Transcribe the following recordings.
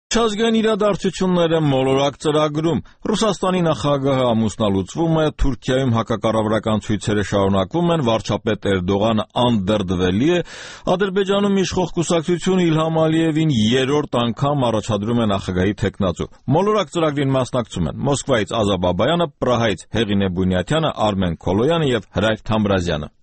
Չազգային իրադարձությունները մոլորակ ծրագրում Ռուսաստանի նախագահը ամուսնալուծվում է, Թուրքիայում հակակառավարական ցույցերը շարունակվում են, վարչապետ Էրդողանը անդրդվելի է, Ադրբեջանում իշխող կուսակցությունը Իլհամ Ալիևին երրորդ անգամ առաջադրում է նախագահի թեկնածու։ Մոլորակ ծրագրին մասնակցում են Մոսկվայից Ազա Բաբայանը, Պրահայից Հեղինե Բունյաթյանը, Արմեն Քոլոյանը եւ Հրայր Թամրազյանը։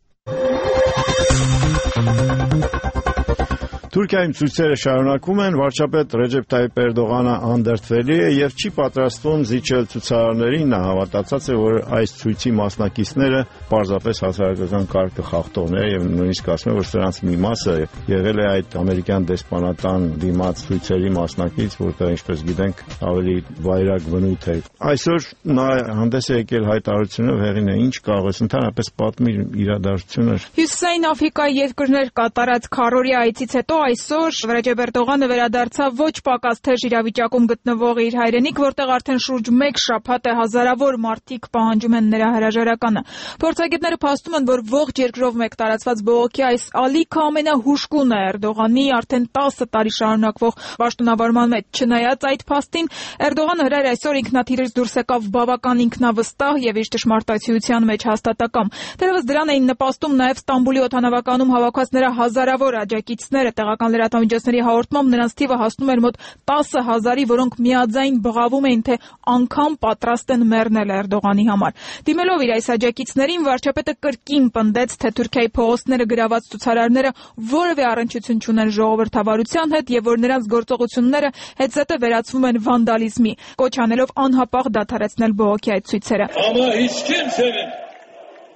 Թուրքիայում ցույցերը շարունակվում են, վարչապետ Ռեջեփ Թայիփ Էրդողանը անդրդվելի է եւ չի պատրաստվում զիջել ցուցարարներին, նա հավատացած է, որ այս ցույցի մասնակիցները պարզապես հասարակական կարգը խախտողներ եւ նույնիսկ ասում է, որ սրանց մի մասը եղել է այդ ամերիկյան դեսպանատան դիմաց ցույցերի մասնակից, որտեղ ինչպես գիտենք ավելի վայրագ բնույթ է։ Այսօր նա հանդես է եկել հայտարարությունով, Հեղինե, ինչ կարող ես ընդհանրապես պատմել իրադարձությունը։ Հյուսիսային Աֆրիկայի երկրներ կատարած քառօրյա այցից հետո այսօր Ռեջեփ Էրդողանը վերադարձավ ոչ պակաս թեժ իրավիճակում գտնվող իր հայրենիք, որտեղ արդեն շուրջ 1 շաբաթ է հազարավոր մարդիկ պահանջում են նրա հրաժարականը։ Փորձագետները փաստում են, որ ողջ երկրով մեկ տարածված բողոքի այս ալիքը ամենահուժկուն է Էրդողանի արդեն 10 տարի շարունակվող պաշտոնավարման մեջ։ Չնայած այդ փաստին, Էրդողանը հրայր այսօր ինքնաթիռից դուրս եկավ բավական ինքնավստահ եւ իր ճշմարտացիության մեջ հաստատակամ։ Դեռևս դրան էին նպաստում նաեւ Ստամբուլի օդանավականում հավաքված նրա հազարավոր աջակիցները, տեղական լրատվամիջոցների հաղորդմամբ նրանց թիվը հասնում էր մոտ 10,000-ի, որոնք միաձայն բղավում էին, թե անգամ պատրաստ են մեռնել Էրդողանի համար։ Դիմելով իր այս աջակիցներին, վարչապետը կրկին պնդեց, թե Թուրքիայի փողոցները գրաված ցուցարարները որևէ առնչություն չունեն ժողովրդավարության հետ եւ որ նրանց գործողությունները հետզհետե վերածվում են վանդալիզմի, կոչ անելով անհապաղ դադարեցնել բողոքի այդ ցույցերը։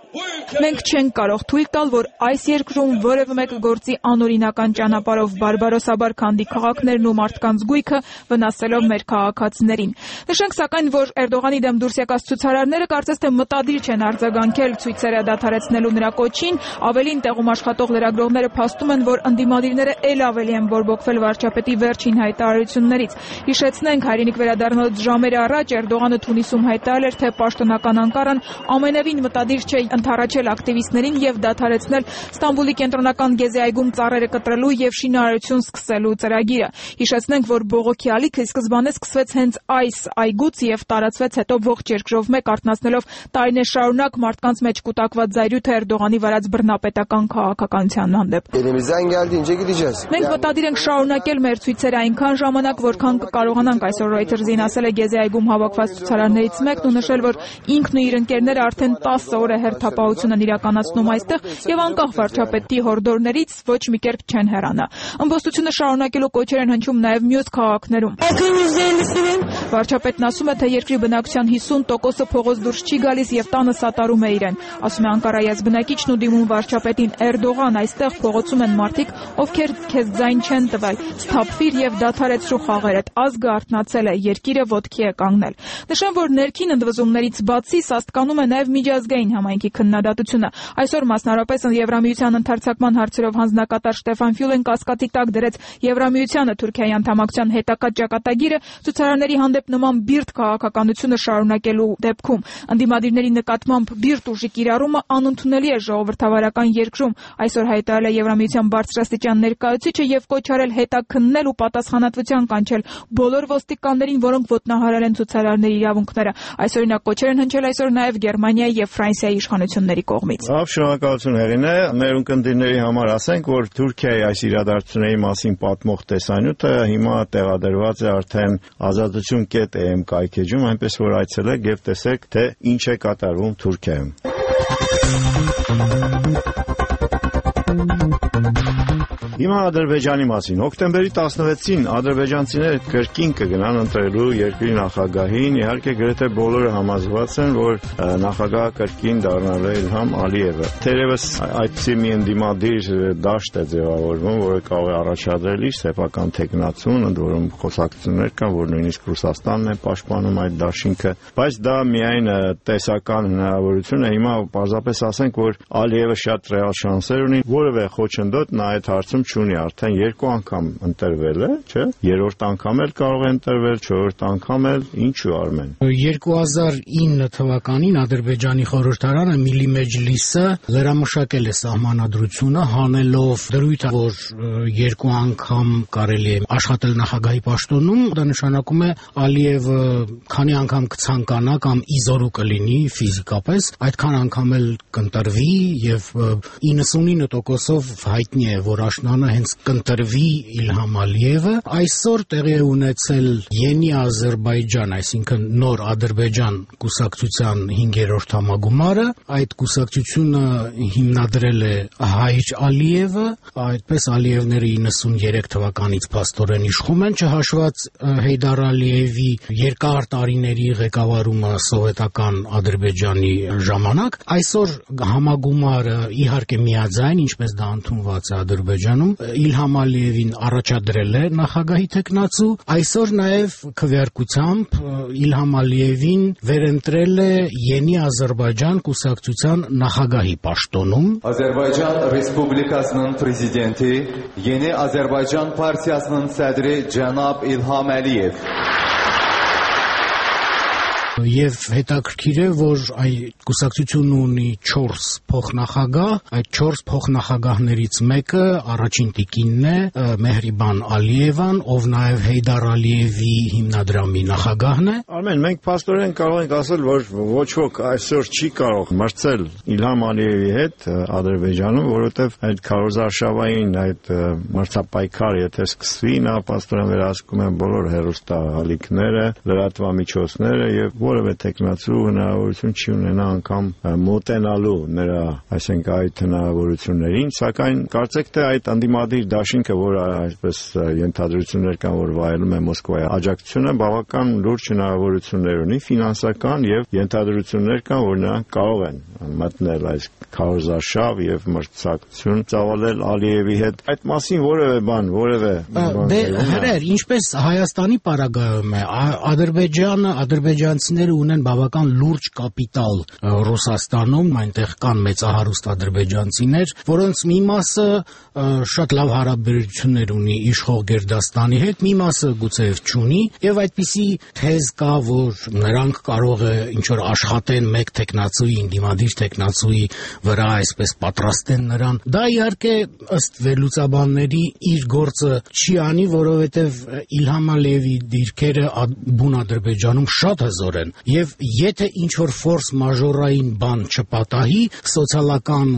Մենք չենք կարող թույլ տալ, որ այս երկրում որևէ մեկը գործի անօրինական ճանապարհով բարբարոսաբար քանդի քաղաքներն ու մարդկանց գույքը, վնասելով մեր քաղաքացիներին։ Նշենք սակայն, որ Էրդողանի դեմ դուրս եկած ցուցարարները կարծես թե մտադիր չեն արձագանքել ցույցերը դադարեցնելու նրա կոչին, ավելին տեղում աշխատող լրագրողները փաստում են, որ ընդդիմադիրները ել ավելի են բորբոքվել վարչապետի վերջին հայտարարություններից։ Հիշեցնենք, հայրենիք վերադառնալուց ժամեր առաջ Էրդողանը Թունիսում հայտարարել էր, թե պաշտոնական Անկարան ամենևին մտադիր չէ ընդառաջել ակտիվիստներին եւ դադարեցնել Ստամբուլի կենտրոնական Գեզի այգում ծառերը կտրելու եւ շինարարություն սկսելու ծրագիրը։ Հիշեցնենք, որ բողոքի ալիքը սկզբանե սկսվեց հենց այս այգուց եւ տարածվեց հետո ողջ երկրով մեկ, արթնացնելով տարիներ շարունակ մարդկանց մեջ կուտակված զայրույթը Էրդողանի վարած բռնապետական քաղաքականության հանդեպ։ Մենք մտադիր ենք շարունակել մեր ցույցերը այնքան ժամանակ, որքան կկարողանանք, այսօր Reuters-ին ասել է Գեզի այգում հավաքված ցուցարարներից մեկն ու նշել, որ ինքն ու իր ընկերները արդեն 10 օր է հերթապահություն են իրականացնում այստեղ եւ անկախ վարչապետի հորդորներից ոչ մի կերպ չեն հեռանա։ Ըմբոստությունը շարունակելու կոչեր են հնչում նաեւ մյուս քաղաքներում։ Վարչապետն ասում է, թե երկրի բնակչության 50%-ը փողոց դուրս չի գալիս եւ տանը սատարում է իրեն։ Ասում է Անկարայի ազգնակիչն ու դիմում վարչապետին Էրդողան, այստեղ փողոցում են մարդիկ, ովքեր քեզ ձայն չեն տվել։ Սթափվիր եւ դադարեցրու խաղերդ։ Ազգը արթնացել է, երկիրը ոտքի է կանգնել։ Նշեմ, որ ներքին ընդվզումներից բացի սաստկանում է նաեւ միջազգային համայնքի քննադատությունը։ Այսօր մասնարարպես Եվրամիության ընդարձակման հարցերով հանձնակատար Շտեֆան Ֆյուլեն կասկածի տակ դրեց Եվրամիությանը Թուրքիայի անդամակցության հետակա ճակատագիրը ցուցարարների հանդեպ նման բիրտ քաղաքականությունը շարունակելու դեպքում։ Ընդդիմադիրների նկատմամբ բիրտ ուժի կիրառումը անընդունելի է ժողովրդավարական երկրում, այսօր հայտարարել է Եվրամիության բարձրաստիճան ներկայացուցիչը եւ կոչ արել հետաքննել ու պատասխանատվության կանչել բոլոր ոստիկաններին, որոնք ոտնահարել են ցուցարարների իրավունքները։ Այսօրինակ կոչեր են հնչել այսօր նաեւ Գերմանիայի եւ Ֆրանսիայի իշխանությունների կողմից։ Լավ, շնորհակալություն Հեղինե, մեր ունկնդիրների համար ասենք, որ Թուրքիայի այս իրադարձությունների մասին պատմող տեսանյութը հիմա տեղադրված է արդեն azadutun.am կայքեջում, այնպես որ այցելեք եւ տեսեք, թե ինչ է կատարվում Թուրքիայում։ Հիմա Ադրբեջանի մասին։ Հոկտեմբերի 16-ին ադրբեջանցիները կրկին կգնան ընտրելու երկրի նախագահին, իհարկե գրեթե բոլորը համաձայնված են, որ նախագահը կրկին դառնալու է Իլհամ Ալիևը։ Թերևս այդպիսի մի ընդդիմադիր դաշտ է ձևավորվում, որը կարող է առաջադրել իր սեփական տեխնացուն, ընդ որում խոսակցություններ կան, որ նույնիսկ Ռուսաստանն է պաշտպանում այդ դաշինքը, բայց դա միայն տեսական հնարավորություն է։ Հիմա պարզապես ասենք, որ Ալիևը շատ ռեալ շանսեր ունի, որևէ խոչընդոտ նա այդ հարցում չունի, արդեն 2 անգամ ընտրվել է, չէ՞։ 3-րդ անգամ էլ կարող է ընտրվել, 4-րդ անգամ էլ, ինչու Արմեն։ 2009 թվականին Ադրբեջանի խորհրդարանը Միլի Մեջլիսը լրամշակել է սահմանադրությունը, հանելով դրույթ, որ 2 անգամ կարելի է աշխատել նախագահի պաշտոնում, դա նշանակում է Ալիևը քանի անգամ կցանկանա կամ իզորու կլինի ֆիզիկապես, այդքան անգամ էլ կընտրվի եւ 99%-ով հայտնի է, որ աշնանը հենց կընտրվի Իլհամ Ալիևը։ Այսօր տեղի է ունեցել Յենի Ադրբեջան, այսինքն նոր Ադրբեջան կուսակցության 5-րդ համագումարը, այդ կուսակցությունը հիմնադրել է Հայր Ալիևը, այդպես Ալիևները 93 թվականից փաստորեն իշխում են, չհաշված Հեյդար Ալիևի երկար տարիների ղեկավարումը սովետական Ադրբեջանի ժամանակ։ Այսօր համագումարը իհարկե միաձայն, ինչպես դա ընդունված է Ադրբեջանում, Իլհամ Ալիևին առաջադրել է նախագահի թեկնածու, այսօր նաև քվեարկությամբ Իլհամ Ալիևին վերընտրել է Յենի Ադրբեջան կուսակցության նախագահի պաշտոնում։ Azərbaycan Respublikasının prezidenti Yeni Azərbaycan Partiyasının sədri cənab İlham Əliyev Եվ հետաքրքիր է, որ այդ կուսակցությունն ունի 4 փոխնախագահ, այդ 4 փոխնախագահներից մեկը առաջին տիկինն է Մեհրիբան Ալիևան, ով նաև Հեյդար Ալիևի հիմնադրամի նախագահն է։ Արմեն, մենք փաստորեն կարող ենք ասել, որ ոչ ոք այսօր չի կարող մրցել Իլհամ Ալիևի հետ Ադրբեջանում, որովհետև այդ քարոզարշավային այդ մրցապայքարը եթե սկսվի, նա փաստորեն վերահսկում է բոլոր հեռուստաալիքները, լրատվամիջոցները եւ որևէ տեխնացու հնարավորություն չի ունենա անգամ մոտենալու նրա, այսինքն այդ հնարավորություններին, սակայն կարծեք թե այդ անդիմադիր դաշինքը, որը այսպես ենթադրություններ կան, որ վայելում է Մոսկվայի աջակցությունը, բավական լուրջ հնարավորություններ ունի, ֆինանսական եւ ենթադրություններ կան, որ նրանք կարող են մտնել այս քարոզարշավ եւ մրցակցություն ծավալել Ալիևի հետ։ Այդ մասին որևէ բան, Դե հրեր, ինչպես Հայաստանի պարագայում է, ադրբեջանցիները ունեն բավական լուրջ կապիտալ Ռուսաստանում, այնտեղ կան մեծահարուստ ադրբեջանցիներ, որոնց մի մասը շատ լավ հարաբերություններ ունի իշխող Գերդաստանի հետ, մի մասը գուցեև չունի, եւ այդպիսի թեզ կա, որ նրանք կարող է ինչ որ աշխատեն մեկ տեխնացուի, ինդիմադիր տեխնացուի վրա, այսպես պատրաստեն նրան։ Դա իհարկե ըստ վերլուծաբանների իր գործը չի անի, որովհետև Իլհամ Ալիևի դիրքերը բուն Ադրբեջանում շատ հզոր են, եւ եթե ինչ որ ֆորս մաժորային բան չպատահի, սոցիալական